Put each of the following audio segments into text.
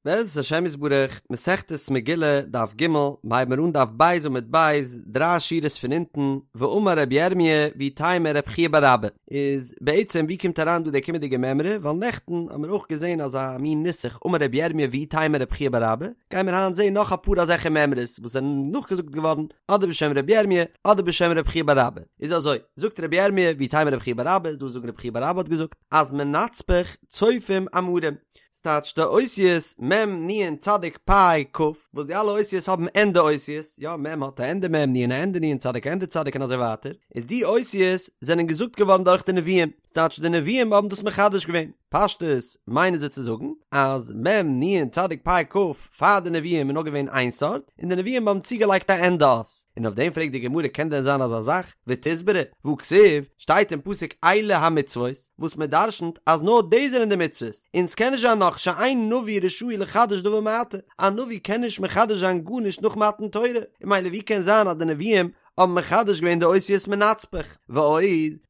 בעזרת השם יתברך, מסכת מגילה, דף ג', מ'הייבן מיר אן דף ב' עמוד ב', דריי שורות פון אונטן, ואמר רבי ירמי' ואיתימא רב חייא בר אבא, איז בעצם ווי קומט אריין דא די קומענדיגע מימרא, ווייל נעכטן האבן מיר אויך געזען אזא מין נוסח אמר רבי ירמי' ואיתימא רב חייא בר אבא, גייען מיר היינט זען נאך אפאר אזעלכע מימרות וואס זענען נאכגעזאגט געווארן אדער בשם רבי ירמי' אדער בשם רב חייא בר אבא, איז אזוי, זאגט רבי ירמי' ואיתימא רב חייא בר אבא, איז דא זאגן רב חייא בר אבא האט געזאגט אז מנצפך צופים אמרים, ס'טייטש די אותיות מ' נ' צדיק פ' כ', וואס די אלע אותיות האבן ענדע אותיות, יא מ' האט א ענדע מ', נ' א ענדע נ', צדיק א ענדע צדיק און אזוי ווייטער, איז די אותיות זענען געזאגט געווארן דורך די נביאים, ס'טייטש די נביאים האבן דאס מחדש געווען, פשטות מיינען זיי צו זאגן אז מ' נ' צדיק פ' כ' פאר די נביאים איז נאר געווען איין סארט, און די נביאים האבן צוגעלייגט א ענדע אות, און אויף דעם פרעגט די גמרא קען דען זיין אזא זאך, ותסברא, והכתיב, שטייט אין פסוק אלה המצוות, וואס מען דרשנ'ט אז נאר דאס זענען די מצוות, און ס'קען נישט זיין נאך שאין נביא רשאי לחדש דבר מעתה, א נביא קען נישט מחדש זיין גארנישט נאך מתן תורה, און ממילא ווי קען זיין אז די נביאים האבן מחדש געווען די אותיות מנצפך? ועוד,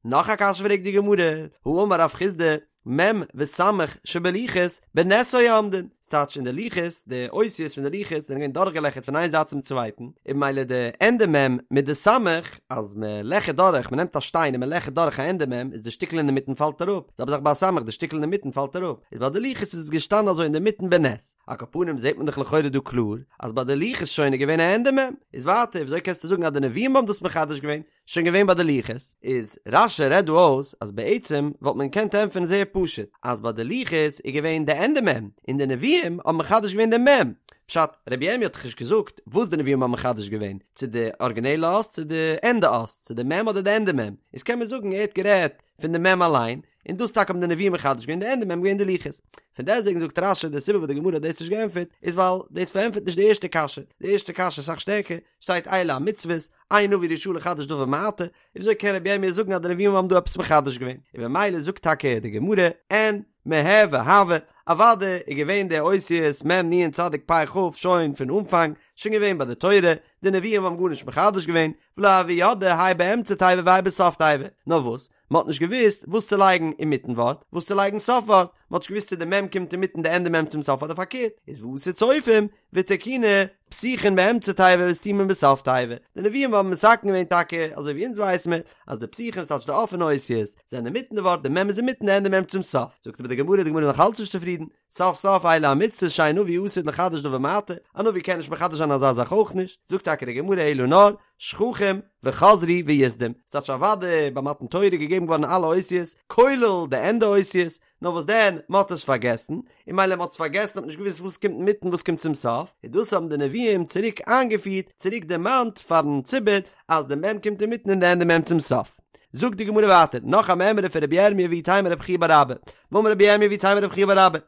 נאך א קשיא פרעגט די גמרא, האמר רב חסדא, מ' וס' שבלוחות בנס היו עומדין, ס'טייטש אין די לוחות, די אותיות פון די לוחות זענען געווען דורכגעלעכערט פון איין זייט צום צווייטן, און ממילא די ענדע מ' מיט די סמך, אז מען לעכערט דורך, מען נעמט א שטיין און מען לעכערט דורך א ענדע מ', איז די שטיקל אינדערמיטן פאלט אראפ, זעלבע זאך ביי א סמך, די שטיקל אינדערמיטן פאלט אראפ, איז ביי די לוחות איז עס געשטאנען אזוי אינדערמיטן בנס. על כל פנים זעט מען דאך לכאורה דא קלאר, אז ביי די לוחות שוין איז געווען א ענדע מ', איז ווייטער וויאזוי קענסטו זאגן אז די נביאים האבן דאס מחדש געווען, שוין געווען ביי די לוחות, איז רש"י רעדט דא אויס אז בעצם וואלט מען געקענט ענטפערן זייער פשוט, אז ביי די לוחות איז געווען די ענדע מ', און די נביאים האבן מחדש געווען די מ'. פשט, רבי ירמי' האט דאך נישט געזאגט וואס די נביאים האבן מחדש געווען, צו די ארגינעלע אות צו די ענדע אות, צו די מ' אדער די ענדע מ', איז קען מען זאגן ער האט גערעדט פון די מ' אליין, און דאס טאקע האבן די נביאים מחדש געווען, די ענדע מ' געווען די לוחות. פון דעסטוועגן זאגט רש"י די סיבה וואס די גמרא האט דאס נישט געענטפערט איז ווייל דאס פארענטפערט נישט די ערשטע קשיא, די ערשטע קשיא איז אסאך שטערקער, שטייט אלה המצוות, אין נביא רשאי לחדש דבר מעתה, וויאזוי קען רבי ירמי' זאגן אז די נביאים האבן דא עפעס מחדש געווען? און במילא זאגט טאקע די גמרא, אין, מיהוי הוו, אוודאי איז געווען די אותיות מ' נ' צדיק פ' כ' שוין פון אנפאנג, שוין געווען ביי די תורה, די נביאים האבן גארנישט מחדש געווען, ולא הוו ידעי הי באמצע תיבה והי בסוף תיבה, נאר וואס? מען האט נישט געוואוסט וואס צו לייגן אינמיטן ווארט, וואס צו לייגן סוף ווארט, מען האט נישט געוואוסט צו די מ' קומט אינמיטן די ענדע מ' צום סוף אדער פארקערט, איז ואתו צופים ותקינו פתיחין באמצע תיבה וסתימין בסוף תיבה, די נביאים האבן מתקן געווען טאקע אזוי ווי אונז ווייס מיר אז די פתיחין ס'טייטש די אפענע אותיות זענען אינמיטן די ווארט די מ' איז אינמיטן די ענדע מ' צום סוף, זאגט אבער די גמרא די גמרא איז נאך אלץ נישט צופרידן, סוף סוף אלה המצוות שאין נביא עתיד לחדש דבר מעתה, א נביא קען נישט מחדש זיין אזא זאך אויך נישט, זאגט טאקע די גמרא אלא נאר, שכחום וחזרו ויסדום, ס'טייטש אוודאי ביי מתן תורה איז געגעבן געווארן אלע אותיות, כולל די ענדע אותיות, נאר וואס דען, מ'האט עס פארגעסן, און מילא מ'האט עס פארגעסן האט מען נישט געוואוסט וואס קומט אינמיטן וואס קומט צום סוף, און דאס האבן די נביאים צוריק איינגעפירט, צוריק דערמאנט פארן ציבור אז די מ' קומט אינמיטן און די ענדע מ' צום סוף. זאגט די גמרא ווייטער, נאך א מימרא פון רבי ירמי' ואיתימא רב חייא בר אבא, ואמר רבי ירמי' ואיתימא רב חייא בר אבא,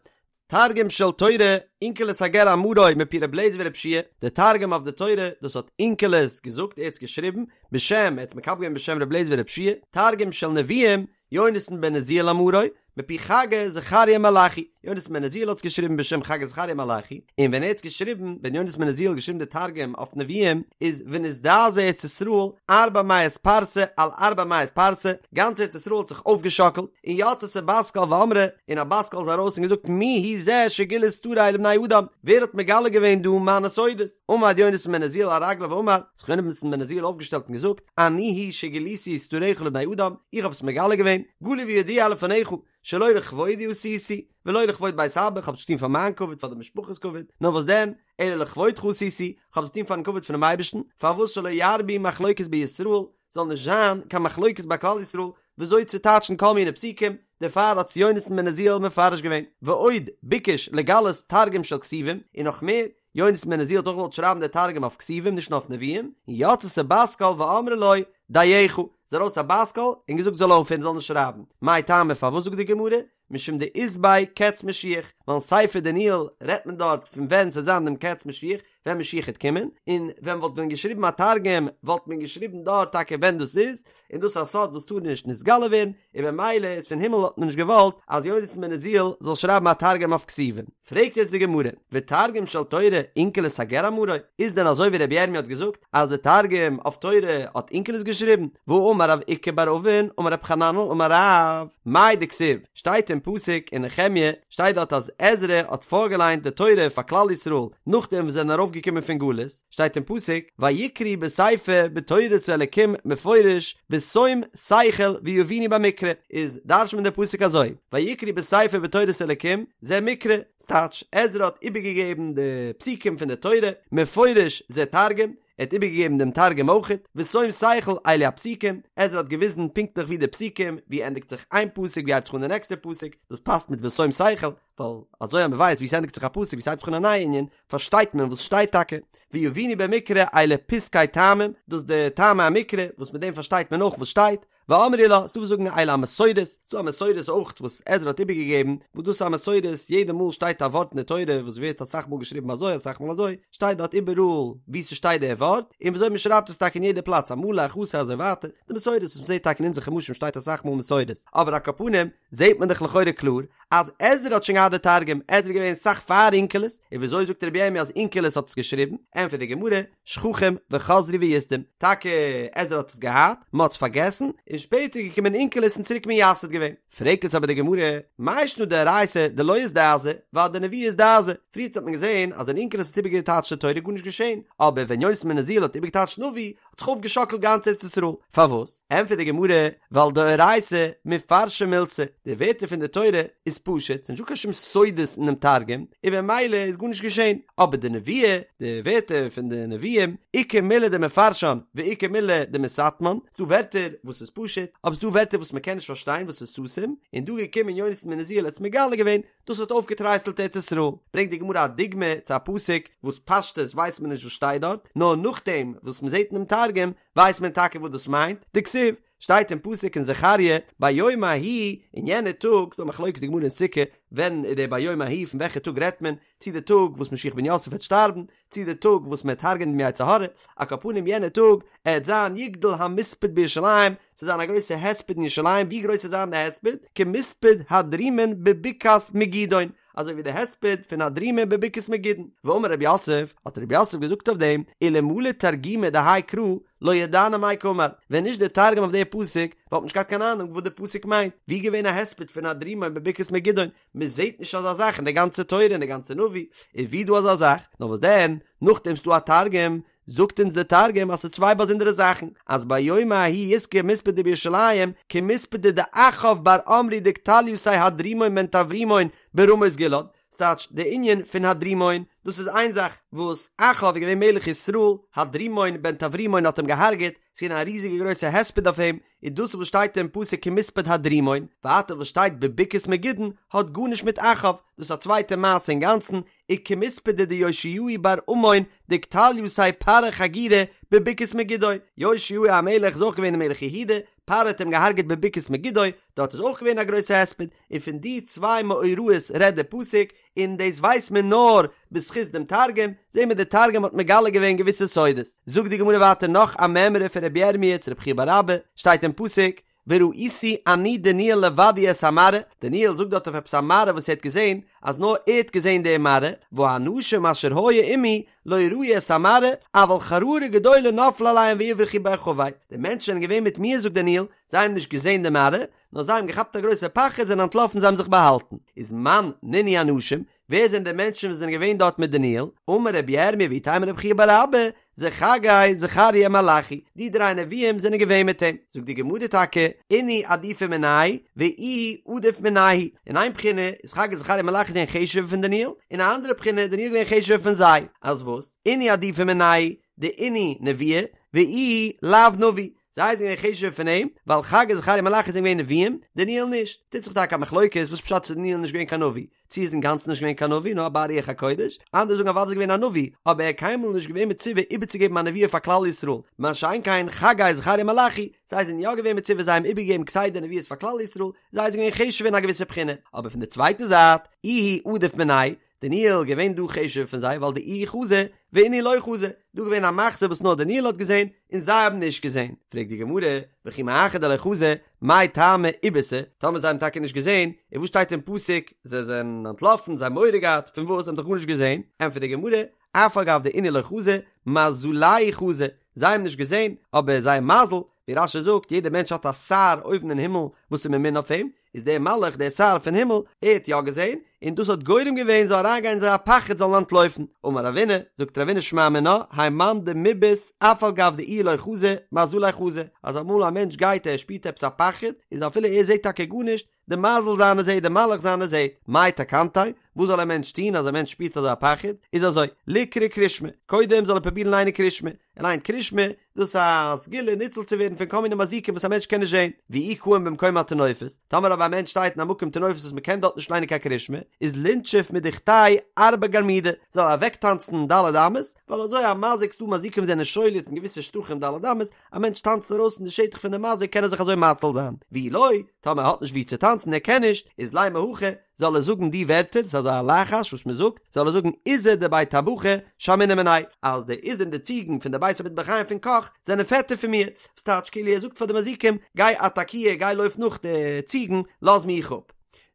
תרגום של תורה, אונקלוס הגר אמרו מפי ר' אליעזר ור' יהושע די תרגום אויף די תורה, דאס האט אונקלוס געזאגט, ער האט עס געשריבן, בשם, ער האט עס מקבל געווען בשם ר' אליעזר ור' יהושע תרגום של נביאים, יונתן בן עוזיאל אמרו, מפי חגי זכריה מלאכי, יונתן בן עוזיאל האט עס געשריבן בשם חגי זכריה מלאכי, און ווען ער האט עס געשריבן, ווען יונתן בן עוזיאל האט געשריבן די תרגום אויף נביאים, איז ונזדעזעה ארץ ישראל ארבע מאות פרסה על ארבע מאות פרסה, גאנץ ארץ ישראל האט זיך אויפגעשאקלט, און יצתה בת קול ואמרה, און א בת קול איז ארויס און געזאגט מי הוא זה שגילה סתרי לבני אדם, ווער האט מגלה געווען דא מיינע סודות? עמד יונתן בן עוזיאל על רגליו ואמר, האט זיך יונתן בן עוזיאל אויפגעשטעלט און געזאגט, אני הוא שגיליתי סתריך לבני אדם, איך האב עס מגלה געווען, גלוי וידוע לפניך, שלא לכבודי עשיתי, ולא לכבוד בית אבא, איך האב עס נישט געטון פאר מיין כבוד, פאר די משפחה'ס כבוד, נאר וואס דען, אלא לכבודך עשיתי, איך האב עס געטון פארן כבוד פונעם אייבערשטן, פארוואס שלא ירבו מחלוקת בישראל, זאל נישט זיין קיין מחלוקת ביי כלל ישראל וויאזוי צו טייטשן כל מיני פסוקים, דערפאר האט עס יונתן בן עוזיאל מפרש געווען, ועוד ביקש לגלות תרגום של כתובים, און נאך מער, יונתן בן עוזיאל האט אויך געוואלט שרייבן די תרגום אויף כתובים נישט נאר אויף נביאים, און יצתה בת קול ואמרה לו, דייך, איז ארויס א בת קול און געזאגט זאל אויפהערן זאל נישט שרייבן, מאי טעמא פארוואס זאגט די גמרא, משום דאית ביה קץ משיח, ווייל אין ספר דניאל רעדט מען דארט פון ווען ס'וועט זיין דעם קץ משיח, ווען משיח העט קומען, און ווען מ'וואלט ווען געשריבן א תרגום וואלט מען געשריבן דארט טאקע ווען דאס איז, און דאס איז א סוד וואס טאר נישט נתגלה ווערן, און במילא איז פון הימל האט מען נישט געוואלט אז יונתן בן עוזיאל זאל שרייבן א תרגום אויף כתובים. פרעגט יעצט די גמרא, ותרגום של תורה אונקלוס הגר אמרו, איז דען אזוי ווי רבי ירמי' האט געזאגט אז די תרגום אויף תורה האט אונקלוס געשריבן, והאמר רב איקא בר אבין אמר רב חננאל אמר רב, מאי דכתיב, שטייט אין. אין פסוק אין נחמיה, שטייט דארט אז עזרא האט פארגעליינט די תורה פאר כלל ישראל נאכדעם וואס זיי זענען ארויפגעקומען פון גלות, שטייט אין פסוק, ויקראו בספר בתורת האלקים מפורש בשום שכל ויבינו במקרא, איז דרש'נט מען די פסוק אזוי, ויקראו בספר בתורת האלקים זה מקרא, ס'טייטש, עזרא האט איבערגעגעבן די פסוקים פון די תורה, מפורש זה תרגום, ער האט איבערגעגעבן דעם תרגום אויכעט, בשום שכל אלו הפסוקים, עזרא האט געוויזן פונקטליך ווי די פסוקים, ווי ענדיגט זיך איין פסוק ווי הייבט זיך אן די נעקסטע פסוק, דאס פאסט מיט בשום שכל, ווייל אזוי אז מען ווייסט ווי ס'ענדיגט זיך א פסוק ווי ס'הייבט זיך אן א נייע ענין, פארשטייט מען וואס שטייט טאקע, ויבינו במקרא אלו פסקי טעמים, דאס די טעמי המקרא, וואס מיט דעם פארשטייט מען אויך וואס שטייט, ואמרי לה, ס'דא וואס זאגן אלו המסורות, ס'דא א מסורת אויך וואס עזרא האט איבערגעגעבן, וואס דאס איז א מסורת, יעדע מאל שטייט א ווארט אין די תורה וואס ווערט אסאך מאל געשריבן אזוי אסאך מאל אזוי, שטייט דארט איבעראל וואו ס'שטייט דער ווארט, און וויאזוי מ'שרייבט עס טאקע אין יעדע פלאץ א מלא א חסר אזוי ווייטער, די מסורת וואס מ'זעט טאקע אין אונזער חומשים שטייט אסאך מאל מסורת, אבער על כל פנים זעט מען דאך לכאורה קלאר אז עזרא האט שוין געהאט די תרגום, עזרא איז געווען אסאך פאר אונקלוס, און וויאזוי זאגט רבי ירמי' אז אונקלוס האט עס געשריבן, ענטפערט די גמרא, שכחום וחזרו וייסדום, טאקע עזרא האט עס געהאט, מען האט עס פארגעסן, און שפעטער איז געקומען אונקלוס און צוריק מייסד געווען. פרעגט יעצט אבער די גמרא, מאי שנא דאורייתא דלא אזדעזע, ואדנביאי אזדעזע, פריערט האט מען געזען אז ווען אונקלוס האט איבערגעטייטשט די תורה איז גארנישט געשען, אבער ווען יונתן בן עוזיאל האט איבערגעטייטשט נביא, האט זיך אויפגעשאקלט גאנץ ארץ ישראל. פארוואס? ענטפערט די גמרא, ווייל דאורייתא מפרשא מילתא, די ווערטער פון די תורה איז פשוט, ס'נישט דא קיין שום סודות אינעם תרגום, און במילא איז גארנישט געשען. אבער די נבואה, די ווערטער פון די נביאים, איכא מילי דמפרשן ואיכא מילי דמסתמן, ס'דא ווערטער וואס איז פשוט, אבער ס'דא ווערטער וואס מ'קען נישט פארשטיין וואס איז סתום, און דא געקומען יונתן בן עוזיאל האט עס מגלה געווען, דאס האט אויפגעטרייסלט ארץ ישראל. ברענגט די גמרא א דוגמא צו א פסוק וואס פשטות ווייסט מען נישט וואס שטייט דארט, נאר נאכדעם וואס מען זעט אינעם תרגום ווייסט מען טאקע וואס דאס מיינט, דכתיב, שטייט אין פסוק אין זכריה, ביום ההוא, אין יענע טאג, ס'דא א מחלוקת די גמרא אין סוכה, ווען איז דער ביום ההוא, פון וועלכע טאג רעדט מען, צי די טאג וואס משיח בן יוסף וועט שטארבן, צי די טאג וואס מען וועט הרג'ענען דעם יצר הרע, על כל פנים יענע טאג עט זיין יגדל המספד בירושלים, ס'עט זיין א גרויסע הספד אין ירושלים, ווי גרויס עט זיין די הספד? כמספד הדרימון בבקעת מגידון, אזוי ווי די הספד פון הדרימון בבקעת מגידון. ואמר רב יוסף, האט רב יוסף געזאגט אויף דעם, אלמלא תרגומא דהאי קרא לא ידענא מאי קאמר, ווען נישט די תרגום אויף די פסוק, וואלט מען נישט געהאט קיין אהנונג וואס די פסוק מיינט, ווי געווען א הספד פון הדרימון בבקעת מגידון, מען זעט נישט אזא זאך אין די גאנצע תורה אין די גאנצע נביא, איז ווי דא אזא זאך? נאר וואס דען, נאכדעם ס'דא א תרגום, זאגט אונז די תרגום אז ס'איז צוויי באזונדערע זאכן, אז ביום ההוא יתקי מספדא בירושלים כמספדא דאחאב בר עמרי דקטליתיה הדרימון בן טברימון ברמות גלעד, ס'טייטש די ענין פון הדרימון, דאס איז איין זאך, וואס אחאב איז געווען מלך ישראל, הדרימון בן טברימון האט אים געהארגעט, ס'איז געווען א ריזיגע גרויסע הספד אויף אים, איז דאס וואס שטייט אין פסוק כמספד הדרימון, ווייטער וואס שטייט בבקעת מגידון האט גארנישט מיט אחאב, דאס איז א צווייטע מעשה אינגאנצן, וכמספדא דיאשיהו בר אמון דקטליתיה פרעה חגירא בבקעת מגידו, יאשיהו המלך איז אויך געווען מלך יהודה, פרעה האט אים געהארגעט בבקעת מגידו, דארט איז אויך געווען א גרויסע הספד, און פון די צוויי מאורעות רעדט די פסוק, און דאס ווייסט מען נאר בזכות דעם תרגום, זעהן מיר די תרגום האט מגלה געווען געוויסע סודות. זאגט די גמרא ווייטער נאך א מימרא פון רבי ירמי' צו רבי חייא בר אבא, שטייט אין פסוק, וראיתי אני דניאל לבדי את המראה, דניאל זאגט דארט אויף עפעס א מראה וואס ער האט געזעהן, אז נאר ער האט געזעהן די מראה, והאנשים אשר היו עמי לא ראו את המראה, אבל חרדה גדולה נפלה עליהם ויברחו בהחבא, די מענטשן זענען געווען מיט מיר זאגט דניאל, זיי האבן נישט געזעהן די מראה, נאר זיי האבן געכאפט א גרויסע פחד זענען אנטלאפן זיי האבן זיך באהאלטן, איז מאן נינהו אנשים, ווער זענען די מענטשן וואס זענען געווען דארט מיט דניאל, אמר רבי ירמי' ואיתימא רבי חייא בר אבא, זה חגי זכריה מלאכי, די דריי נביאים זענען געווען מיט אים, זאגט די גמרא טאקע, אינהו עדיפי מינייהו ואיהו עדיף מינייהו, אין איין בחינה איז חגי זכריה מלאכי זענען חשוב'ער פון דניאל, אין א אנדערע בחינה איז דניאל געווען חשוב'ער פון זיי, אז וואס? אינהו עדיפי מינייהו, דאינהו נביאי, ואיהו לאו נביא, זיי זענען געווען חשוב'ער פון אים, ווייל חגי זכריה מלאכי זענען געווען נביאים, דניאל נישט. טוט זיך טאקע א מחלוקת וואס פשט איז דניאל נישט געווען קיין נביא, צו איז אינגאנצן נישט געווען קיין נביא נאר א בעל רוח הקודש, אנדערע זאגן אוודאי איז געווען א נביא, אבער ער איז קיינמאל נישט געווען מצווה איבערצוגעבן א נבואה פאר כלל ישראל, מה שאין כן חגי זכריה מלאכי, זיי זענען יא געווען מצווה זיי האבן איבערגעגעבן כסדר נבואות פאר כלל ישראל, זיי זענען געווען חשוב'ער אין א געוויסע בחינה, אבער פון די צווייטע זייט, איהו עדיף מינייהו, דניאל געווען דא חשוב'ער פון זיי ווייל דאיהו חזא ואינהו לא חזו, דא געווען א מחזה וואס נאר דניאל האט געזען און זיי האבן נישט געזען, פרעגט די גמרא, וכי מאחר דלא חזו, מאי טעמא איבעיתו, טאמער זיי האבן טאקע נישט געזען, און וואס שטייט אין פסוק, זיי זענען אנטלאפן, זיי האבן מורא געהאט, פון וואס, זיי האבן דאך גארנישט געזען, ענטפערט די גמרא, אף על גב דאינהו לא חזו, מזלייהו חזו, זיי האבן נישט געזען, אבער זייער מזל, ווי רש"י זאגט, יעדער מענטש האט א שר אויבן אין הימל וואס איז ממונה אויף אים, איז דער מלאך דער שר פון הימל, ער האט יא געזען, און דאס האט גורם געווען זאל אריינגיין אין זיי א פחד זאלן אנטלויפן. אמר רבינא, זאגט רבינא שמע מינה, האי מאן דמבעית אף על גב דאיהו לא חזי, מזליה חזי, אז אמאל א מענטש גייט ער שפירט עפעס א פחד, איז אפילו ער זעט טאקע גארנישט, די מזל זיינע זעט, די מלאך זיינע זעט, מאי תקנתיה, וואס זאל א מענטש טון אז א מענטש שפירט אזא פחד, איז אזוי, ליקרי קרישמע, קודם זאל ער פרובירן ליינען קרישמע, ער ליינט קרישמע, דאס איז א סגולה ניצול צו ווערן פון כל מיני מזיקים וואס א מענטש קען נישט זען, ואי קאים במקום הטינופת, טאמער אבער א מענטש שטייט אין א מקום טינופת וואס מען קען דארט נישט ליינען קיין קרישמע, איז לינשוף מדוכתיה ארבע גרמידי, זאל ער אוועקטאנצן ד' אמות, ווייל אזוי א מזיק, ס'דא מזיקים זענען שולט אין געוויסע שטחים ד' אמות, א מענטש טאנצט ארויס אין די שטח פון די מזיק קען ער זיך אזוי מציל זיין, ואי לא, טאמער ער האט נישט וואו צו טאנצן ער קען נישט, איז לימא הכי, זאל ער זאגן די ווערטער, ס'איז אזא לחש וואס מען זאגט, זאל ער זאגן עיזי דבי טבחי שמעינן מינאי, אז די עיזים די ציגן פון די בית המטבחיים פון קאך זענען פעטער פון מיר, וואס טייטש כאילו ער זאגט פאר די מזיקים, גיי אטאקיר, גיי לויף נאך די ציגן, לאז מיך אפ.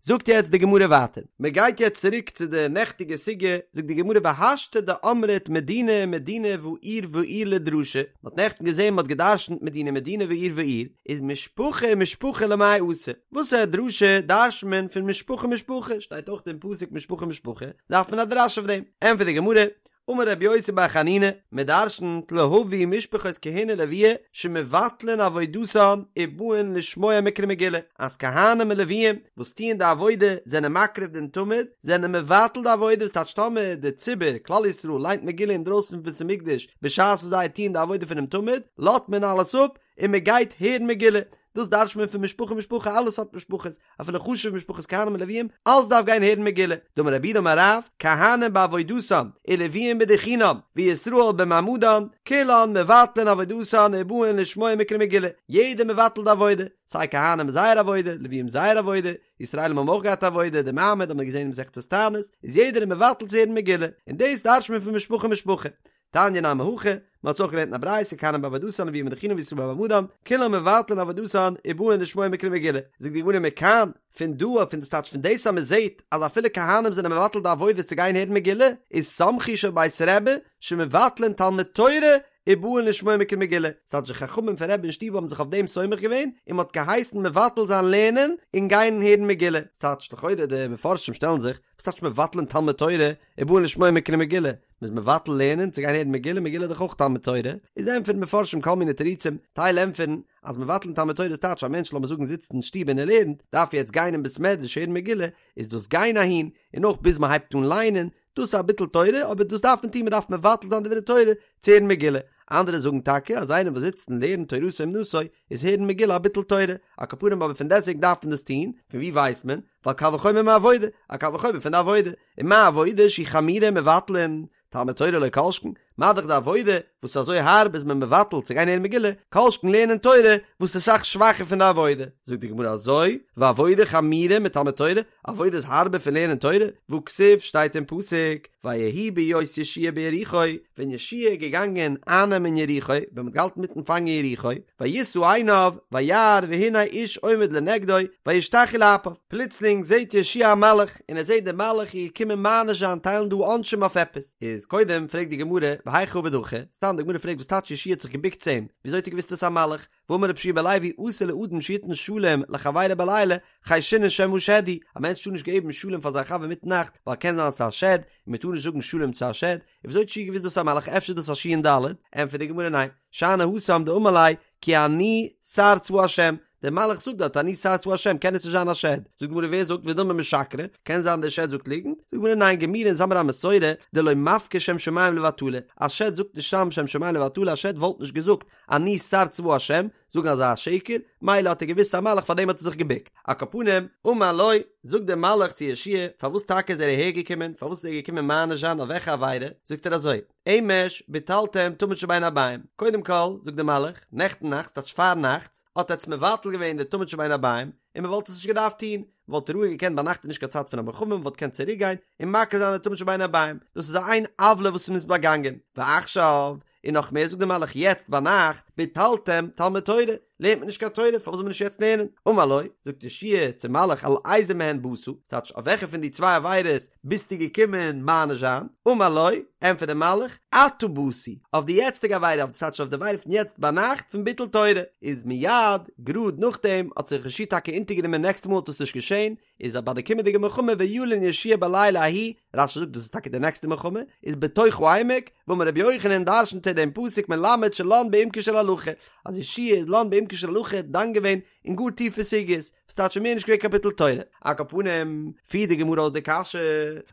זאגט יעצט די גמרא ווייטער, מען גייט יעצט צוריק צו די נעכטיגע סוגיא, זאגט די גמרא והשתא דאמרת מדינה מדינה ועיר ועיר לדרשה, מען האט נעכטן געזען מען האט גע'דרש'נט מדינה מדינה ועיר ועיר, איז משפחה משפחה למאי אתא, וואסערע דרשה דרש'נט מען פון משפחה משפחה, שטייט אויך אין פסוק משפחה משפחה, דארף מען א דרש אויף דעם, ענטפערט די גמרא, אמר רבי יוסי בר חנינא, מען דרשנ'ט להביא משפחות כהונה ולויה שמבטלין עבודתן ובאין לשמוע מקרא מגילה, אז כהנים און לוויים וואס טוען די עבודה זענען מקריב דעם תמיד, זענען מבטל די עבודה וואס טייטש טאמער די ציבור, כלל ישראל, ליינט מגילה אינדרויסן פון בית המקדש בשעת וואס זיי טוען די עבודה פונעם תמיד, לאזט מען אלעס אפ און מען גייט הערן מגילה, דאס דרש'נט מען פון משפחה משפחה אלע סארט משפחות, אפילו חשובע משפחות כהנים און לוויים, אלס דארף גיין הערן מגילה, דאמר רב יהודה אמר רב, כהנים בעבודתם, ולוויים בדוכנם, וישראל במעמדן, כולן מבטלין עבודתן ובאין לשמוע מקרא מגילה, יעדער מבטל די עבודה, סיי כהנים זייער עבודה, לוויים זייער עבודה, ישראלים האבן אויך געהאט עבודה, די מעמד האט מען געזען אין מסכת תענית, איז יעדער מבטל צו הערן מגילה, און דאס דרש'נט מען פון משפחה משפחה. תניא נמי הכי, מען האט עס אויך געלערנט אין א ברייתא, כהנים בעבודתן לוויים בדוכנם וישראל במעמדן, כולן מבטלין עבודתן ובאין לשמוע מקרא מגילה. זאגט די גמרא מכאן, פון דא אויף פון דאס טייטש פון דאס אז מען זעט אז אפילו כהנים זענען מבטל די עבודה צו גיין הערן מגילה, איז סמכו של בית רבי שמבטלין תלמוד תורה ובאין לשמוע מקרא מגילה. ס'טייטש די חכמים פון רבי אין שטוב האבן זיך אויף דעם סומך געווען און מען האט געהייסן מבטל זיין לערנען און גיין הערן מגילה. ס'טייטש לכאורה די מפרשים שטעלן זיך, וואס טייטש מבטלין תלמוד תורה ובאין לשמוע מקרא מגילה? מ'איז מבטל לערנען צו גיין הערן מגילה, מגילה איז דאך אויך תלמוד תורה, איז ענטפערן מפרשים כל מיני תירוצים, טייל ענטפערן אז מבטלין תלמוד תורה איז טייטש א מענטש לאמיר זאגן זיצט אין שטוב און ער לערנט, דארף יעצט גיין אין בית מדרש הערן מגילה, איז דאס גיין אהין, און אויך ביז מ'הייבט אן ליינען, דאס איז א ביטול תורה, אבער דאס דארף מען טון, מ'דארף מבטל זיין דברי תורה צו הערן מגילה. אנדערע זאגן טאקע אז איינער וואס זיצט און לערנט תורתו אומנותו איז הערן מגילה א ביטול תורה, על כל פנים אבער פון דעסטוועגן דארף מען דאס טון, פון וואו ווייסט מען? ווייל קל וחומר מעבודה, א קל וחומר פון די עבודה, ומה עבודה שהיא חמורה מבטלין, תלמוד תורה לא כל שכן, מה דאך די עבודה וואס איז אזוי הארב איז מען מבטל צו גיין הערן מגילה, כל שכן לערנען תורה וואס איז אסאך שוואכער פון די עבודה. זאגט די גמרא אזוי, ועבודה חמורה מתלמוד תורה, עבודה איז הארבער פון לערנען תורה, והכתיב שטייט אין פסוק, ויהי בהיות יהושע ביריחו, ווען יהושע איז געגאנגען אייננעמען יריחו, ווען מ'האט געהאלטן מיטן פאנגען יריחו, וישא עיניו, וירא והנה איש עומד לנגדו, וישתחו לאפיו, פלוצלינג זעט יהושע א מלאך, און ער זעט דער מלאך איז געקומען מעניש זיין טיילן דא עונשים אויף עפעס, איז קודם פרעגט די גמרא, והיכי עביד הכי, סתם די גמרא פרעגט וואס טייטש יהושע האט זיך געבוקט צו אים, וויאזוי האט ער געוואוסט עס איז א מלאך, והאמר רבי יהושע בן לוי אסור לאדם שיתן שלום לחבירו בלילה חיישינן שמא שד הוא, א מענטש טאר נישט געבן שלום פאר זיין חבר מיטן נאכט ווייל קען זיין ס'איז א שד, און מען טאר נישט זאגן שלום צו א שד, און וויאזוי האט יהושע געוואוסט דאס איז א מלאך אפשר איז דאס א שי"ן דל"ת, ענטפערט די גמרא ניין, שאני התם דאמר ליה כי אני שר צבא השם, דער מלאך זאגט דארט אני שר צבא השם קען עס נישט זיין א שד, זאגט די גמרא ווער זאגט ודילמא משקרי, קען זיין דער שד זאגט ליגנט, זאגט די גמרא ניין גמירי אונז האמיר א מסורה דלא מפקיר שם שמים לבטלה, א שד זאגט נישט סתם שם שמים לבטלה א שד וואלט נישט געזאגט אני שר צבא השם, זאגן אזא שקר, מילא האט ער געוואוסט ס'איז א מלאך פארדעם האט ער זיך געבוקט. על כל פנים, אמר לו, זאגט דער מלאך צו יהושע פארוואס טאקע איז ער אהער געקומען, פארוואס איז ער געקומען מעניש זיין אויף וועלכע עבירה, זאגט ער אזוי, אמש ביטלתם תמיד של בין הערביים, קודם כל, זאגט דער מלאך, נעכטן נאכט, ס'טייטש פארנאכטס, האט עטץ מבטל געווען די תמיד של בין הערביים, און מען וואלט עס נישט געדארפט טון, מען וואלט רואיג געקענט ביינאכט איז נישט קיין צייט פון א מלחמה, מען וואלט געקענט צוריק גיין און מקריב זיין די תמיד של בין הערביים, דאס איז איין עוולה וואס מען איז באגאנגען, ועכשיו, און נאך מער זאגט דער מלאך יעצט ביינאכט ביטלתם תלמוד תורה, לערנט מען נישט קיין תורה, פארוואס זאל מען נישט יעצט לערנען? אמר לו, זאגט יהושע צום מלאך על איזה מהן באת, ס'טייטש אויף וועלכע פון די צוויי עבירות ביסטו געקומען מעניש זיין? אמר לו, ענטפערט דער מלאך, עתה באתי, אויף די יעצטיגע עבירה, אויף ס'טייטש אויף די עבירה פון יעצט ביינאכט פון ביטול תורה, איז מיד, גראד נאכדעם, האט זיך יהושע טאקע אונטערגענומען נעקסטע מאל האט עס נישט געשען, איז ביי די קומענדיגע מלחמה וילן יהושע בלילה ההוא, רש"י זאגט דאס איז טאקע די נעקסטע מלחמה, איז בתוך העמק, ואמר רבי יוחנן דרשנ'ט ער דעם פסוק מלמד שלן בעמקה של הלכה, אז יהושע איז לן בעמקה של הלכה דן געווען אין גאר טיפע סוגיות, וואס טייטש מער נישט געווען קיין ביטול תורה. על כל פנים, פירט די גמרא אויס די קשיא,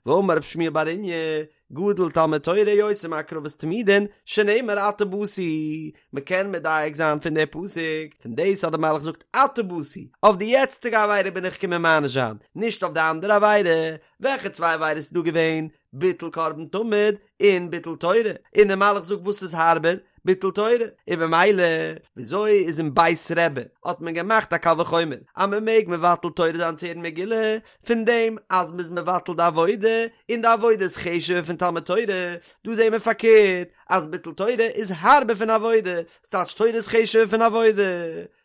והאמר רב שמואל בר איניא, גדול תלמוד תורה יותר מהקרבת תמידין, שנאמר עתה באתי, מען קען מדייק זיין פון די פסוק, פון דאס אז די מלאך זאגט עתה באתי, אויף די יעצטיגע עבירה בין איך געקומען מעניש זיין, נישט אויף די אנדערע עבירה, וועלכע צוויי עבירות איז דא געווען? ביטול קרבן תמיד און ביטול תורה, און די מלאך זאגט וואס איז הארבער? ביטול תורה, און במילא וויאזוי איז אין בית רבי האט מען געמאכט א קל וחומר אז מען מעג מבטל תורה זיין צו הערן מגילה, פון דעם אז מ'איז מבטל די עבודה, און די עבודה איז חשוב'ער פון תלמוד תורה, דא זעהן מיר פארקערט אז ביטול תורה איז הארבער פון עבודה, ס'טייטש תורה איז חשוב'ער פון עבודה.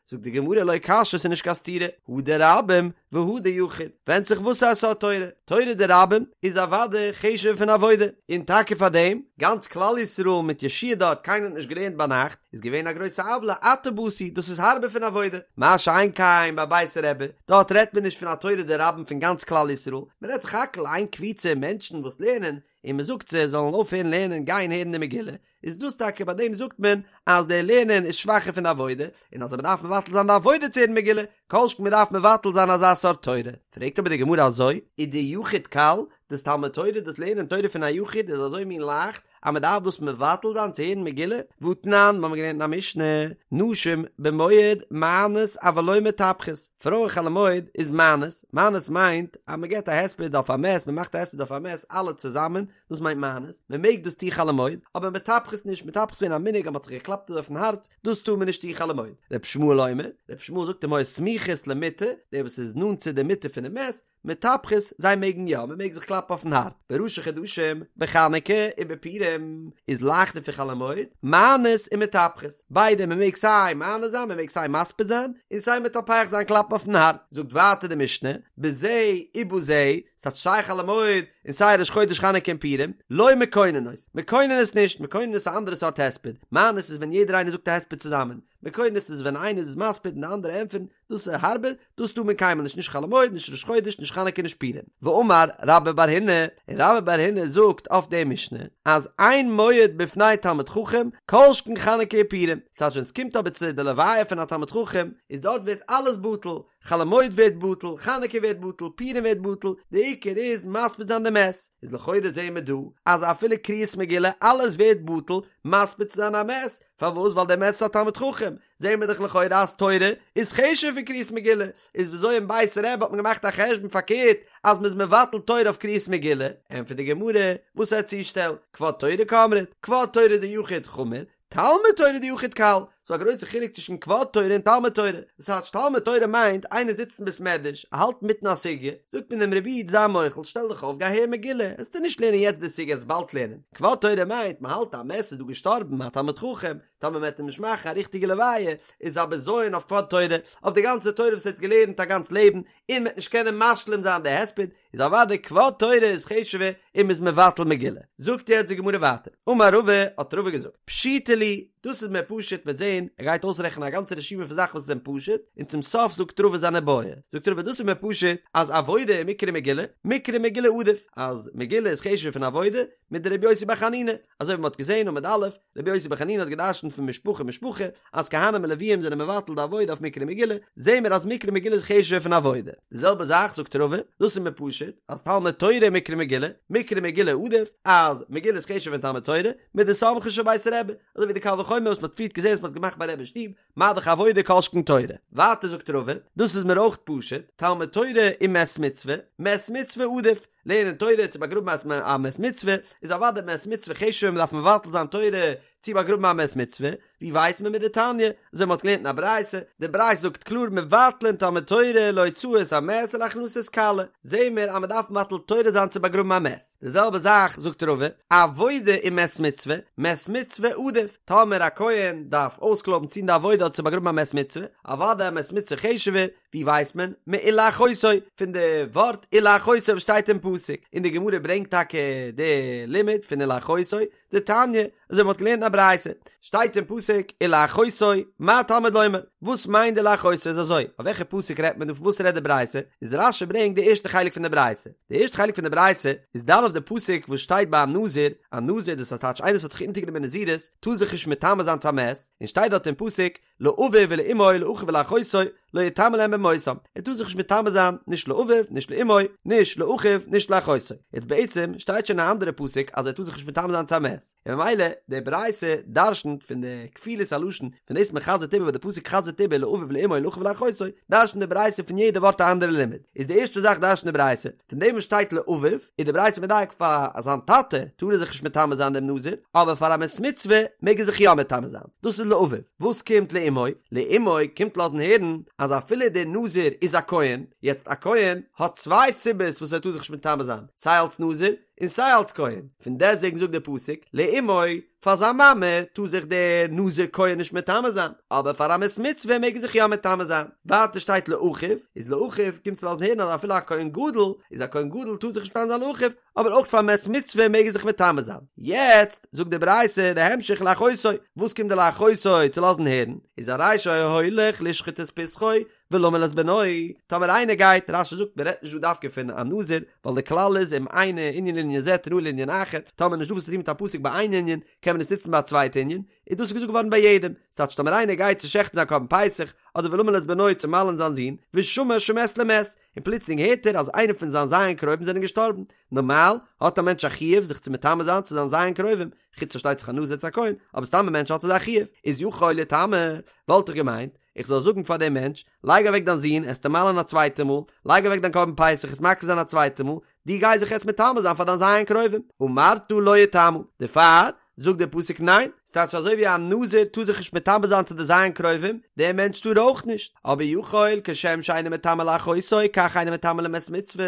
זאגט די גמרא לא קשיא ס'איז נישט קיין סתירה, הא דרבים והא דיחיד, ווענדט זיך וואס א סארט תורה, תורה דרבים איז אוודאי חשוב'ער פון עבודה, און טאקע פאר דעם, גאנץ כלל ישראל מיט יהושע דארט קיינער האט נישט געלערנט ביינאכט, איז געווען א גרויסע עוולה עתה באתי, דאס איז הארבער פון עבודה, מה שאין כן ביי בית רבי, דארט רעדט מען נישט פון א תורה דרבים פון גאנץ כלל ישראל, מען רעדט סך הכל איין קבוצה מענטשן וואס לערנען, און מען זאגט זיי זאלן אויפהערן לערנען גיין הערן די מגילה, איז דאס טאקע ביי דעם זאגט מען אז די לערנען איז שוואכער פון די עבודה, און אז מען דארף מבטל זיין די עבודה צו הערן מגילה, כל שכן מען דארף מבטל זיין אזא סארט תורה. פרעגט אבער די גמרא אזוי, ודיחיד קל, דאס תלמוד תורה, דאס לערנען תורה פון א יחיד איז אזוי מין לייכט, אז מען דארף דאס מבטל זיין צו הערן מגילה? והתנן, מיר האבן געלערנט אין א משנה, נשים במועד מענות אבל לא מטפחות, פרויען חול המועד איז מענות, מענות מיינט אז מען געבט א הספד אויף א מת, מען מאכט א הספד אויף א מת אלע צוזאמען, דאס מיינט מענות, מען מעג דאס טון חול המועד, אבער מטפחות נישט, מטפחות איז געווען א מנהג אז מען האט זיך געקלאפט אזוי אויפן הארץ, דאס טאר מען נישט טון חול המועד. ר' ישמעאל אומר, ר' ישמעאל זאגט אם היו סמוכות למיטה, דער וואס איז נאנט צו די מיטה פונעם מת, מטפחות, זיי מעגן יא, מען מעג זיך קלאפן אויפן הארץ, בראשי חדשים, בחנוכה ובפורים, איז לייכטער פון חול המועד, מענות און מטפחות, ביידע, מען מעג סיי מענה זיין, מען מעג סיי מספיד זיין, און סיי מטפח זיין קלאפן אויפן הארץ. זאגט ווייטער די משנה, בזה ובזה, ס'טייטש סיי חול המועד און סיי ראש חודש חנוכה און פורים, לא מקוננות, מקוננות נישט, מקוננות איז א אנדערע סארט הספד, מענות איז ווען יעדער איינער זאגט א הספד צוזאמען, מקוננות איז ווען איינער איז מספיד און די אנדערע ענטפערן, דאס איז הארבער, דאס טאר מען קיינמאל נישט, נישט חול המועד, נישט ראש חודש, נישט חנוכה, נישט פורים. ואמר רבה בר הונא, און רבה בר הונא זאגט אויף די משנה, אז אין מועד בפני תלמיד חכם, כל שכן חנוכה ופורים, ס'טייטש ווען ס'קומט אבער צו די לוויה פון א תלמיד חכם, איז דארט ווערט אלעס בטל, חול המועד ווערט בטל, חנוכה ווערט בטל, פורים ווערט בטל, די עיקר איז מספיד זיין די מת, איז לכאורה זעהן מיר דא אז אפילו קריאת מגילה אלעס ווערט בטל מספיד צו זיין א מת, פארוואס ווייל דער מת איז א תלמיד חכם, זעהן מיר דאך לכאורה אז תורה איז חשוב'ער פון קריאת מגילה, איז וויאזוי אין בית רבי האט מען געמאכט א חשבון פארקערט אז מ'איז מבטל תורה אויף קריאת מגילה, ענטפערט די גמרא, וואס א צושטעל, כבוד תורה קאמרת, כבוד תורה דיחיד חמור, תלמוד תורה דיחיד קל, ס'דא א גרויסע חילוק צווישן כבוד תורה און תלמוד תורה, דאס טייטש תלמוד תורה מיינט איינער זיצט אין בית מדרש, ער האלט אינמיטן א סוגיא, זאגט מען אים רבי איד זיי מוחל שטעל דיך אויף גיי הער מגילה, עסטו נישט לערנען יעצט די סוגיא עסט באלד לערנען, כבוד תורה מיינט מען האלט א מת איז דא געשטארבן א תלמיד חכם, טאמער מען וועט אים נישט מאכן א ריכטיגע לוויה איז א בזיון אויף כבוד תורה, אויף די גאנצע תורה וואס ער האט געלערנט א גאנץ לעבן, און מען וועט נישט קענען משלים זיין די הספד, איז אוודאי כבוד תורה איז חשוב'ער און מ'איז מבטל מגילה. זאגט יעצט די גמרא ווייטער, אמר רבא, האט רבא געזאגט, פשיטא לי, דאס איז מיר פשוט, מ'וועט זען, ער גייט אויסרעכענען א גאנצע רשימה פון זאכן וואס זענען פשוט, און צום סוף זאגט רבא זיין איבעיא, זאגט רבא דאס איז מיר פשוט, אז עבודה ומקרא מגילה, מקרא מגילה עדיף, אז מגילה איז חשוב'ער פון עבודה, מדרבי יוסי בר חנינא, אזוי ווי מ'האט געזען עמוד א', רבי יוסי בר חנינא האט געדרשנט פון משפחה משפחה אז כהנים און לוויים זענען מבטל די עבודה אויף מקרא מגילה, זעהן מיר אז מקרא מגילה איז חשוב'ער פון עבודה. די זעלבע זאך זאגט רבא, דאס איז מיר פשוט, אז תלמוד תורה ומקרא מגילה, מקרא מגילה עדיף, אז מגילה איז חשוב'ער פון תלמוד תורה, מדסמכו של בית רבי, אזוי ווי די קל וחומר וואס מ'האט פריערט געזעהן וואס מ'האט געמאכט ביי רבי אין שטוב, מה דאך עבודה כל שכן תורה. ווייטער זאגט רבא, דאס איז מיר אויך פשוט, תלמוד תורה ומת מצוה, מת מצוה עדיף. לערנען תורה צו באגראבן א מת מצוה, איז אוודאי מת מצוה חשוב'ער מ'דארף מבטל זיין תורה צו באגראבן א מת מצוה, ווי ווייסט מען מדתניא, אזוי מ'האט געלערנט אין א ברייתא, די ברייתא זאגט קלאר מבטלין תלמוד תורה להוצאת המת ולהכנסת כלה, זעהן מיר אז מ'דארף מבטל תורה זיין צו באגראבן א מת, די זעלבע זאך זאגט רבא, עבודה ומת מצוה, מת מצוה עדיף, טאמער א כהן דארף אויסקלויבן צו טון די עבודה אדער צו באגראבן א מת מצוה, אוודאי א מת מצוה חשוב'ער, ווי ווייסט מען? מולאחותו, פון די ווארט ולאחותו וואס שטייט אין פסוק, און די גמרא ברענגט טאקע די לימוד פון ולאחותו, דתניא, אזוי מ'האט געלערנט אין א ברייתא, שטייט אין פסוק ולאחותו, מה תלמוד לומר? וואס מיינט די ולאחותו איז אזוי, אויף וועלכע פסוק רעדט מען דא פון וואס רעדט די ברייתא, איז רש"י ברענגט די ערשטע חלק פון די ברייתא, די ערשטע חלק פון די ברייתא איז דן אויף די פסוק וואס שטייט ביי א נזיר, א נזיר דאס טייטש איינער וואס האט זיך אונטערגענומען נזירות טאר זיך נישט מטמא זיין צו א מת, און שטייט דארט אין פסוק לאביו ולאמו לאחיו ולאחותו לא יטמא להם במותם, ער טאר זיך נישט מטמא זיין נישט לאביו נישט לאמו נישט לאחיו נישט לאחותו, יעצט בעצם שטייט שוין אין א אנדערע פסוק אז ער טאר זיך נישט מטמא זיין צו א מת, און ממילא די ברייתא דרשנ'ט פון די כפילות הלשון פון דאס מען חזר'ט איבער וואס די פסוק חזר'ט איבער לאביו ולאמו לאחיו ולאחותו, דרשנ'ט די ברייתא פון יעדע ווארט א אנדערע לימוד, איז די ערשטע זאך דרשנ'ט די ברייתא פון דעם וואס שטייט לאביו, איז די ברייתא מדייק פאר זיין טאטע טאר ער זיך נישט מטמא זיין דעם נזיר, אבער פאר א מת מצוה מעג ער זיך יא מטמא זיין, דאס איז לאביו. וואס קומט לאמו? לאמו קומט לאזן הערן אז אפילו דער נזיר איז א כהן, יעצט א כהן האט צוויי סיבות וואס ער טאר זיך נישט מטמא זיין, סיי אלס נזיר און סיי אלס כהן, פון דעסטוועגן זאגט דער פסוק לאמו, פאר זיין מאמע טאר זיך דער נזיר כהן נישט מטמא זיין, אבער פאר א מת מצוה מעג ער זיך יא מטמא זיין. ווייטער שטייט לאחיו, איז לאחיו קומט צו לאזן הערן אז אפילו א כהן גדול איז א כהן גדול טאר זיך נישט מטמא זיין לאחיו, אבער אויך פאר מת מצוה מעג ער זיך מטמא זיין. יעצט זאגט די ברייתא די המשך לאחותו, וואס קומט די לאחותו צו לאזן הערן, איז הרי שהיה הולך לשחוט את פסחו ולמול את בנו, טאמער איינער גייט, רש"י זאגט מען רעדט נישט דא דווקא פון א נזיר, ווייל די כלל איז אם אינו ענין לענין זה תנהו לענין אחר, טאמער נישט דא וואס צו טון מיט א פסוק ביי איין ענין, קען מען עס נוצן ביי א צווייטע ענין, איז דאס געזאגט געווארן ביי יעדעם, ס'טייטש טאמער איינער גייט צו שעכטן זיין קרבן פסח, אדער ולמול את בנו צו מל'ן זיין זון, ושמע שמת למת, און פלוצלינג הערט ער אז איינער פון זיין ז' קרובים זענען געשטארבן, נארמאל האט א מענטש א חיוב זיך צו מטמא זיין צו זיין ז' קרובים, חוץ פארשטייט זיך א נזיר צו א כהן, אבער סתם א מענטש האט אזא חיוב, איז יכול יטמא, וואלט איך געמיינט, איך זאל זאגן פאר דעם מענטש, לייג אוועק דיין זון, עסטו מל'ן א צווייטע מאל, לייג אוועק דיין קרבן פסח, עסט מקריב זיין א צווייטע מאל, דו גיי זיך יעצט מטמא זיין פאר דיין ז' קרובים, אמרת לא יטמא, דערפאר זאגט דער פסוק ניין, ס'טייטש אזוי ווי א נזיר טאר זיך נישט מטמא זיין צו די ז' קרובים, דער מענטש טאר אויך נישט, אבער יכול כשם שאינו מטמא לאחותו כך אינו מטמא למת מצוה,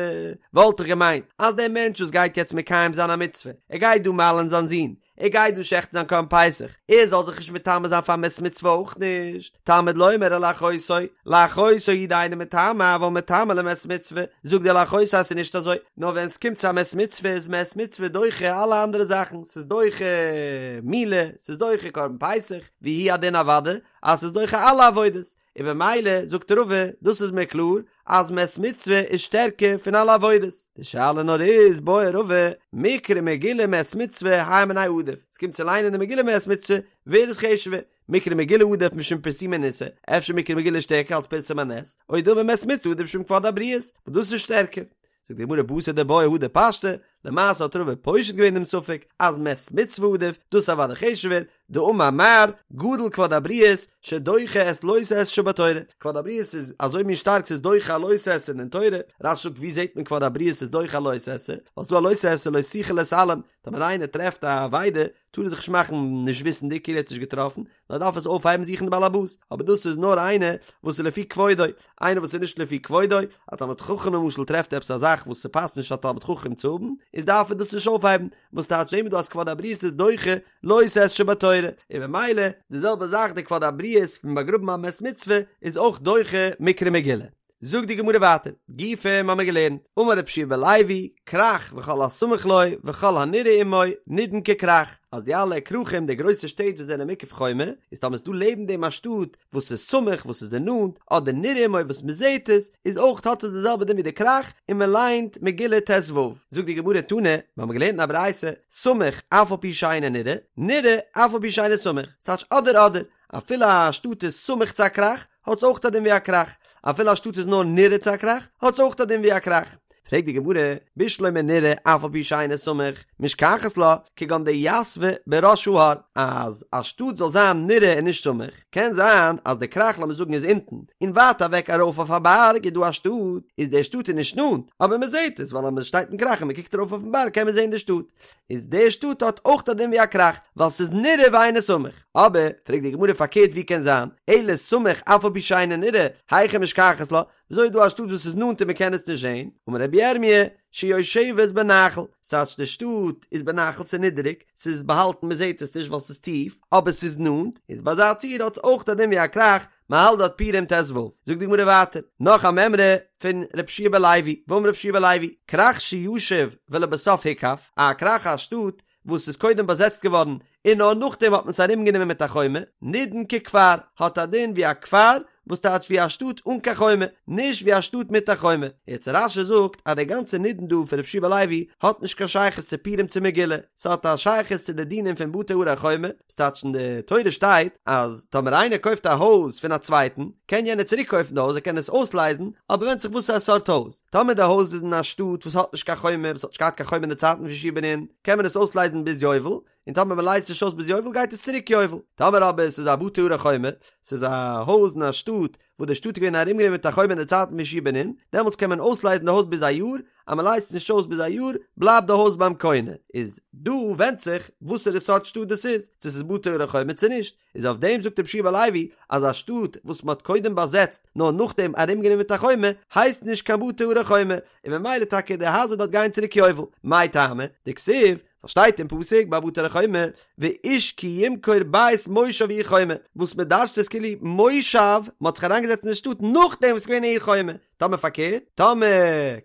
וואלט איך געמיינט אז דער מענטש וואס גייט יעצט מקיים זיין א מצוה, ער גייט דא מל'ן זיין זון, ער גייט דא שעכטן זיין קרבן פסח, ער זאל זיך נישט מטמא זיין פאר מת מצוה אויך נישט, תלמוד לומר ולאחותו, לאחותו הוא דאינו מטמא אבל מטמא למת מצוה, זאגט דער לאחותו אז ס'איז נישט אזוי, נאר ווען ס'קומט צו א מת מצוה איז מת מצוה דוחה אלע אנדערע זאכן, ס'איז דוחה מילה, ס'איז דוחה קרבן פסח, והוא הדין אוודאי אז ס'איז דוחה אלע עבודות, און במילא זאגט רבא, דאס איז מיר קלאר אז מת מצוה איז שטערקער פון אלע עבודות, די שאלה נאר איז, בעי רבא, מקרא מגילה מת מצוה הי מינייהו עדיף, עס קומט צו ליינען די מגילה מת מצוה, ווער איז חשוב'ער, מקרא מגילה עדיף משום פרסומי ניסא, אפשר מקרא מגילה איז שטערקער אלס פרסום הנס, או דילמא מת מצוה עדיף משום כבוד הבריות, וואס דאס איז שטערקער. זאגט די גמרא בתר דבעיא הדר פשטה, למעשה האט רבא פושט געווען דעם ספק אז מת מצוה עדיף, דאס איז אוודאי חשוב'ער, דאמר מר, גדול כבוד הבריות שדוחה את לא תעשה שבתורה, כבוד הבריות איז אזוי מין שטארק ס'איז דוחה א לא תעשה אין דער תורה, רש"י זאגט ווי זעט מען כבוד הבריות איז דוחה א לא תעשה, ווייל ס'דא א לא תעשה לא תוכל להתעלם, טאמער איינער טרעפט א אבידה טאר ער זיך נישט מאכן נישט וויסנדיג כאילו ער האט נישט געטראפן, נאר דארף עס אויפהייבן זוכן די בעלעבאס, אבער דאס איז נאר איינער וואס איז לפי כבודו, איינער וואס איז נישט לפי כבודו, א תלמיד חכם למשל טרעפט עפעס א זאך וואס ס'פאסט נישט א תלמיד חכם צו האבן, איז דארף ער דאס נישט אויפהייבן, וואס טייטש זעהן מיר דא אז כבוד הבריות איז דוחה לא תעשה שבתורה, און במילא די זעלבע זאך די כבוד הבריות פון באגראבן א מת מצוה איז אויך דוחה מקרא מגילה. זאגט די גמרא ווייטער, גופא האמיר געלערנט, אמר רבי יהושע בן לוי, כרך וכל הסמוך לו וכל הנראה עמו נידון ככרך, אז די אלע כרכים די גרויסע שטעט וואס זענען מוקף חומה, איז טאמער איז דא לעבן דעם א שטאט וואס איז סמוך וואס איז די נאנט, אדער נראה עמו וואס מען זעט עס, איז אויך האט עס די זעלבע דין ווי די כרך, און מען ליינט מגילה ט"ו. זאגט די גמרא תנא, מיר האבן געלערנט אין א ברייתא, סמוך אף על פי שאינו נראה, נראה אף על פי שאינו סמוך, ס'טייטש אדער אדער, אפילו א שטאט איז סמוך צו א כרך, האט עס אויך א דין ווי א כרך, אפילו א שטאט איז נאר נראה צו א כרך, האט עס אויך א דין ווי א כרך. פרעגט די גמרא, בשלמא נראה אף על פי שאינו סמוך, משכחת לה, כגון דיתבא בראש ההר, אז א שטאט זאל זיין נראה און נישט סמוך, קען זיין אז די כרך לאמיר זאגן איז אונטן, און ווייט אוועק ארויף אויף א בארג איז דא א שטאט, איז די שטאט איז נישט נאנט, אבער מען זעט עס, ווייל אז מען שטייט אין כרך און מען קוקט ארויף אויפן בארג קען מען זען די שטאט, איז די שטאט האט אויך א דין ווי א כרך, ווייל ס'איז נראה ואינו סמוך. אבער, פרעגט די גמרא פארקערט ווי קען זיין, אלא סמוך אף על פי שאינו נראה, היכי משכחת לה, וויאזוי איז דא א שטאט וואס איז נאנט און מען קען עס נישט זען? אמר רבי ירמי', שיושבת בנחל, ס'טייטש די שטאט איז בנחל ס'איז נידעריג, ס'איז באהאלטן מען זעט עס נישט ווייל ס'איז טיף, אבער ס'איז נאנט, איז ביי אזא ציור האט עס אויך א דין ווי א כרך, מען האלט דארט פורים ט"ו. זאגט די גמרא ווייטער, נאך א מימרא פון רבי יהושע בן לוי, ואמר רבי יהושע בן לוי, כרך שישב ולבסוף הוקף, א כרך א שטאט וואס איז קודם באזעצט געווארן און נאר נאכדעם האט מען עס ארומגענומען מיט א חומה, נידון ככפר, האט א דין ווי א כפר, וואס טייטש ווי א שטאט אן קיין חומה, נישט ווי א שטאט מיט א חומה. יעצט רש"י זאגט אז די גאנצע נידון דא פון רבי יהושע בן לוי האט נישט קיין שייכות צו פורים צו מגילה, ס'האט א שייכות צו די דינים פון בתי ערי חומה, וואס טייטש אין די תורה שטייט אז טאמער איינער קויפט א הויז פון א צווייטן, קען יענער צוריק קויפן די הויז, ער קען עס אויסלייזן, אבער ווענדט זיך וואס א סארט הויז. טאמער די הויז איז אין א שטאט וואס האט נישט קיין חומה, וואס האט נישט געהאט קיין חומה אין די צייטן פון יהושע בן נון, קען מען עס אויסלייזן ביז יובל, און טאמער מען לייזט נישט אויס ביז יובל גייט עס צוריק יובל. טאמער אבער עס איז א בתי ערי חומה, ס'איז א הויז אין א שטאט וואס די שטאט איז געווען ארומגענומען מיט א חומה אין די צייטן פון יהושע בן נון, דעמאלטס קען מען אויסלייזן די הויז ביז א יאר, אז מען לייזט נישט אויס ביז א יאר, בלייבט די הויז ביים קונה. איז דא ווענדט זיך וואסערע סארט שטאט דאס איז, צו ס'איז בתי ערי חומה צו נישט. איז אויף דעם זאגט רבי יהושע בן לוי אז א שטאט וואס מען האט קודם באזעצט נאר נאכדעם ארומגענומען מיט א חומה הייסט נישט קיין בתי ערי חומה, און ממילא טאקע די הייזער דארט גייען צוריק יובל. מאי טעמא? דכתיב, ווייל שטייט אין פסוק ביי בתי ערי חומה ואיש כי ימכור בית מושב עיר חומה, וואס מען דרש'ט עס כאילו מושב, מען האט זיך אריינגעזעצט אין די שטאט נאכדעם וואס ס'איז געווען עיר חומה, טאמער פארקערט, טאמער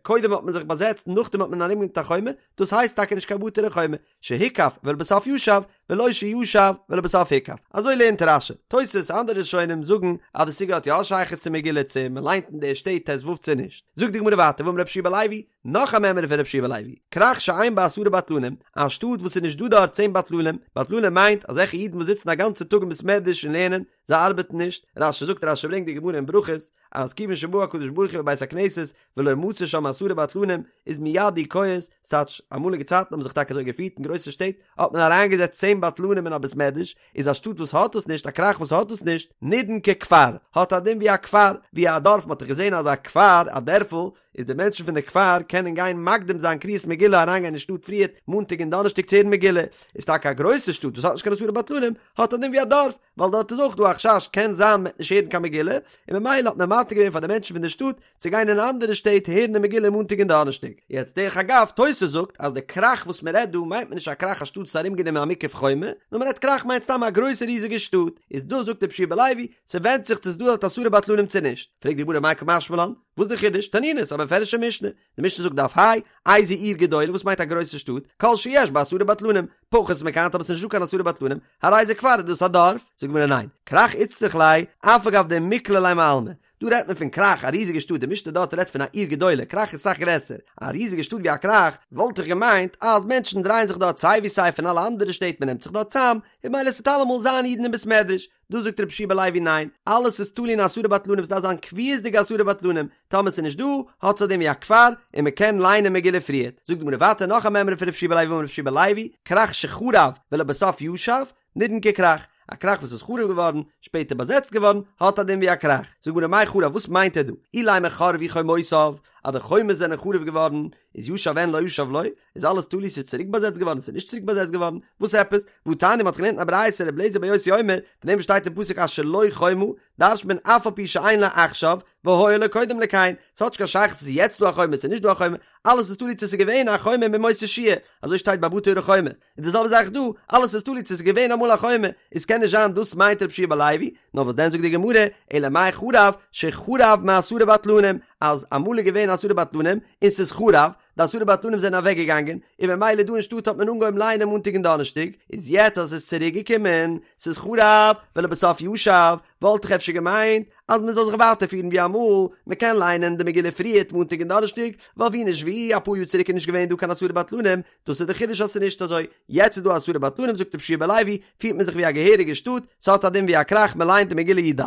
קודם האט מען זיך באזעצט נאכדעם האט מען ארומגענומען מיט א חומה, דאס הייסט טאקע נישט קיין בתי ערי חומה, שהוקף ולבסוף ישב, ולא שישב ולבסוף הוקף. אזוי לערנט רש"י. תוס' אנדערע ראשונים זאגן אז די סוגיא האט יא א שייכות צו מגילה צו מען ליינט אין די שטעט ט"ו צו נישט. זאגט די גמרא ווייטער ואמר רבי יהושע בן לוי, נאך א מימרא פון רבי יהושע בן לוי, כרך שאין בה עשרה בטלנים, א שטאט וואס איז נישט דא דארט צען בטלנים, בטלנים מיינט אזעלכע אידן וואס זיצן א גאנצע טאג אין בית מדרש און לערנען, זיי ארבעטן נישט, רש"י זאגט רש"י ברענגט די גמרא אין ברכות, אז כיוון שבא הקדוש ברוך הוא בבית הכנסת ולא מצא שם עשרה בטלנים איז מיד הוא כועס, ס'טייטש, אמאליגע צייטן האבן זיך טאקע אזוי געפירט אין גרויסע שטעט האט מען אריינגעזעצט צען בטלנים אין א בית מדרש, איז א שטאט וואס האט דאס נישט, א כרך וואס האט דאס נישט, נידון ככפר, האט א דין ווי א כפר, ווי א דארף, מ'האט דאך געזען אז א כפר, א דערפל, איז די מענטשן פון די כפר קענען גיין מקדים זיין קריאת מגילה אריינגיין אין שטאט פריערט מאנטאג און דאנערשטאג צו הערן מגילה, איז טאקע א גרויסע שטאט וואס האט נישט קיין עשרה בטלנים, האט א דין ווי א דארף, ווייל דארט איז אויך דא א חשש קען זיין מ'וועט נישט הערן קיין מגילה, און ממילא האט מען מתיר געווען פאר די מענטשן פון די שטאט צו גיין אין אנדערע שטעט הערן די מגילה מאנטאג און דאנערשטאג. יעצט דרך אגב, תוס' זאגט אז די כרך וואס מען רעדט דא מיינט מען נישט א כרך א שטאט וואס איז ארומגענומען א מוקף חומה, נאר מען רעדט כרך מיינט סתם א גרויסע ריזיגע שטאט, איז דא זאגט רבי יהושע בן לוי, ס'ווענדט זיך צו ס'איז דא דארט עשרה בטלנים צו נישט. פרעגט די גמרא מאי קא משמע לן, וואס די חידוש? תנינא, ס'איז א מפורש'ע משנה. די משנה זאגט דף ה', איזו עיר גדולה, וואס מיינט א גרויסע שטאט? כל שיש בה עשרה בטלנים, פחות מכאן טאמער ס'איז נישט דא קיין עשרה בטלנים, הרי זה כפר איז דאס א דארף? זאגט די גמרא ניין, כרך איצטריך ליה, אף על גב דמיקלע ליה מעלמא. דא רעדט מען פון כרך, א ריזיגע שטאט, די משנה דארט רעדט פון א עיר גדולה, כרך איז אסאך גרעסער, א ריזיגע שטאט ווי א כרך, וואלט איך געמיינט אז מענטשן דרייען זיך דארט סיי ווי סיי פון אלע אנדערע שטעט מען נעמט זיך דארט צאם, און ממילא ס'וועט אלעמאל זיין אידן אין בית מדרש, דא זאגט רבי יהושע בן לוי ניין, אלעס איז תלוי אין עשרה בטלנים ס'דארף זיין קביעות'דיגע עשרה בטלנים, טאמער ס'איז נישט דא, האט עס א דין ווי א כפר, און מ'קען ליינען מגילה פריערט. זאגט די גמרא ווייטער נאך א מימרא פון רבי יהושע בן לוי אמר רבי יהושע בן לוי, כרך שחרב ולבסוף ישב, נידון ככרך, א כרך וואס איז חרוב געווארן, שפעטער באזעצט געווארן, האט א דין ווי א כרך. זאגט די גמרא מאי חרב וואס מיינט ער דא? אילימא חרבו חומותיו, אז די חומות זענען חרוב געווארן, איז ישב אין לא ישב לא, איז אלעס תלוי ס'איז צוריק באזעצט געווארן ס'איז נישט צוריק באזעצט געווארן, וואס עפעס? והתניא מ'האט געלערנט אין א ברייתא ר' אליעזר בן יוסי אומר, פון דעם וואס שטייט אין פסוק אשר לו חומה, דרש'נט מען אף על פי שאין לה עכשיו, והיה לה קודם לכן, ס'האט נישט קיין שייכות צו ס'איז יעצט דא א חומה ס'איז נישט דא א חומה, אלעס איז תלוי צו ס'איז געווען א חומה מימות יהושע, אזוי שטייט ביי בתי ערי חומה, און די זעלבע זאך דא, אלעס איז תלוי צו ס'איז געווען אמאל א חומה, איז קען נישט זיין דאס מיינט ר' יהושע בן לוי, נאר וואס דען זאגט די גמרא, אלא מאי חרב, שחרב מעשרה בטלנים, אז אמאל איז געווען עשרה בטלנים, און ס'איז חרב, די עשרה בטלנים זענען אוועק געגאנגען, און ממילא דא אין שטאט האט מען אנגעהויבן לייענען מאנטאג און דאנערשטאג, איז יעצט אז עס איז צוריק געקומען, ס'איז חרב, ולבסוף ישב, וואלט איך אפשר געמיינט אז מען זאל זיך ווייטער פירן ווי אמאל, מען קען לייענען די מגילה פריערט מאנטאג און דאנערשטאג, ווייל ווי נישט ווי, אפאר יאר צוריק איז נישט געווען דא קיין עשרה בטלנים, דאס איז די חידוש אז ס'איז נישט אזוי, יעצט איז דא עשרה בטלנים זאגט רבי יהושע בן לוי, פירט מען זיך ווי א געהעריגע שטאט, ס'האט א דין ווי א כרך, מען לייענט די מגילה י"ד.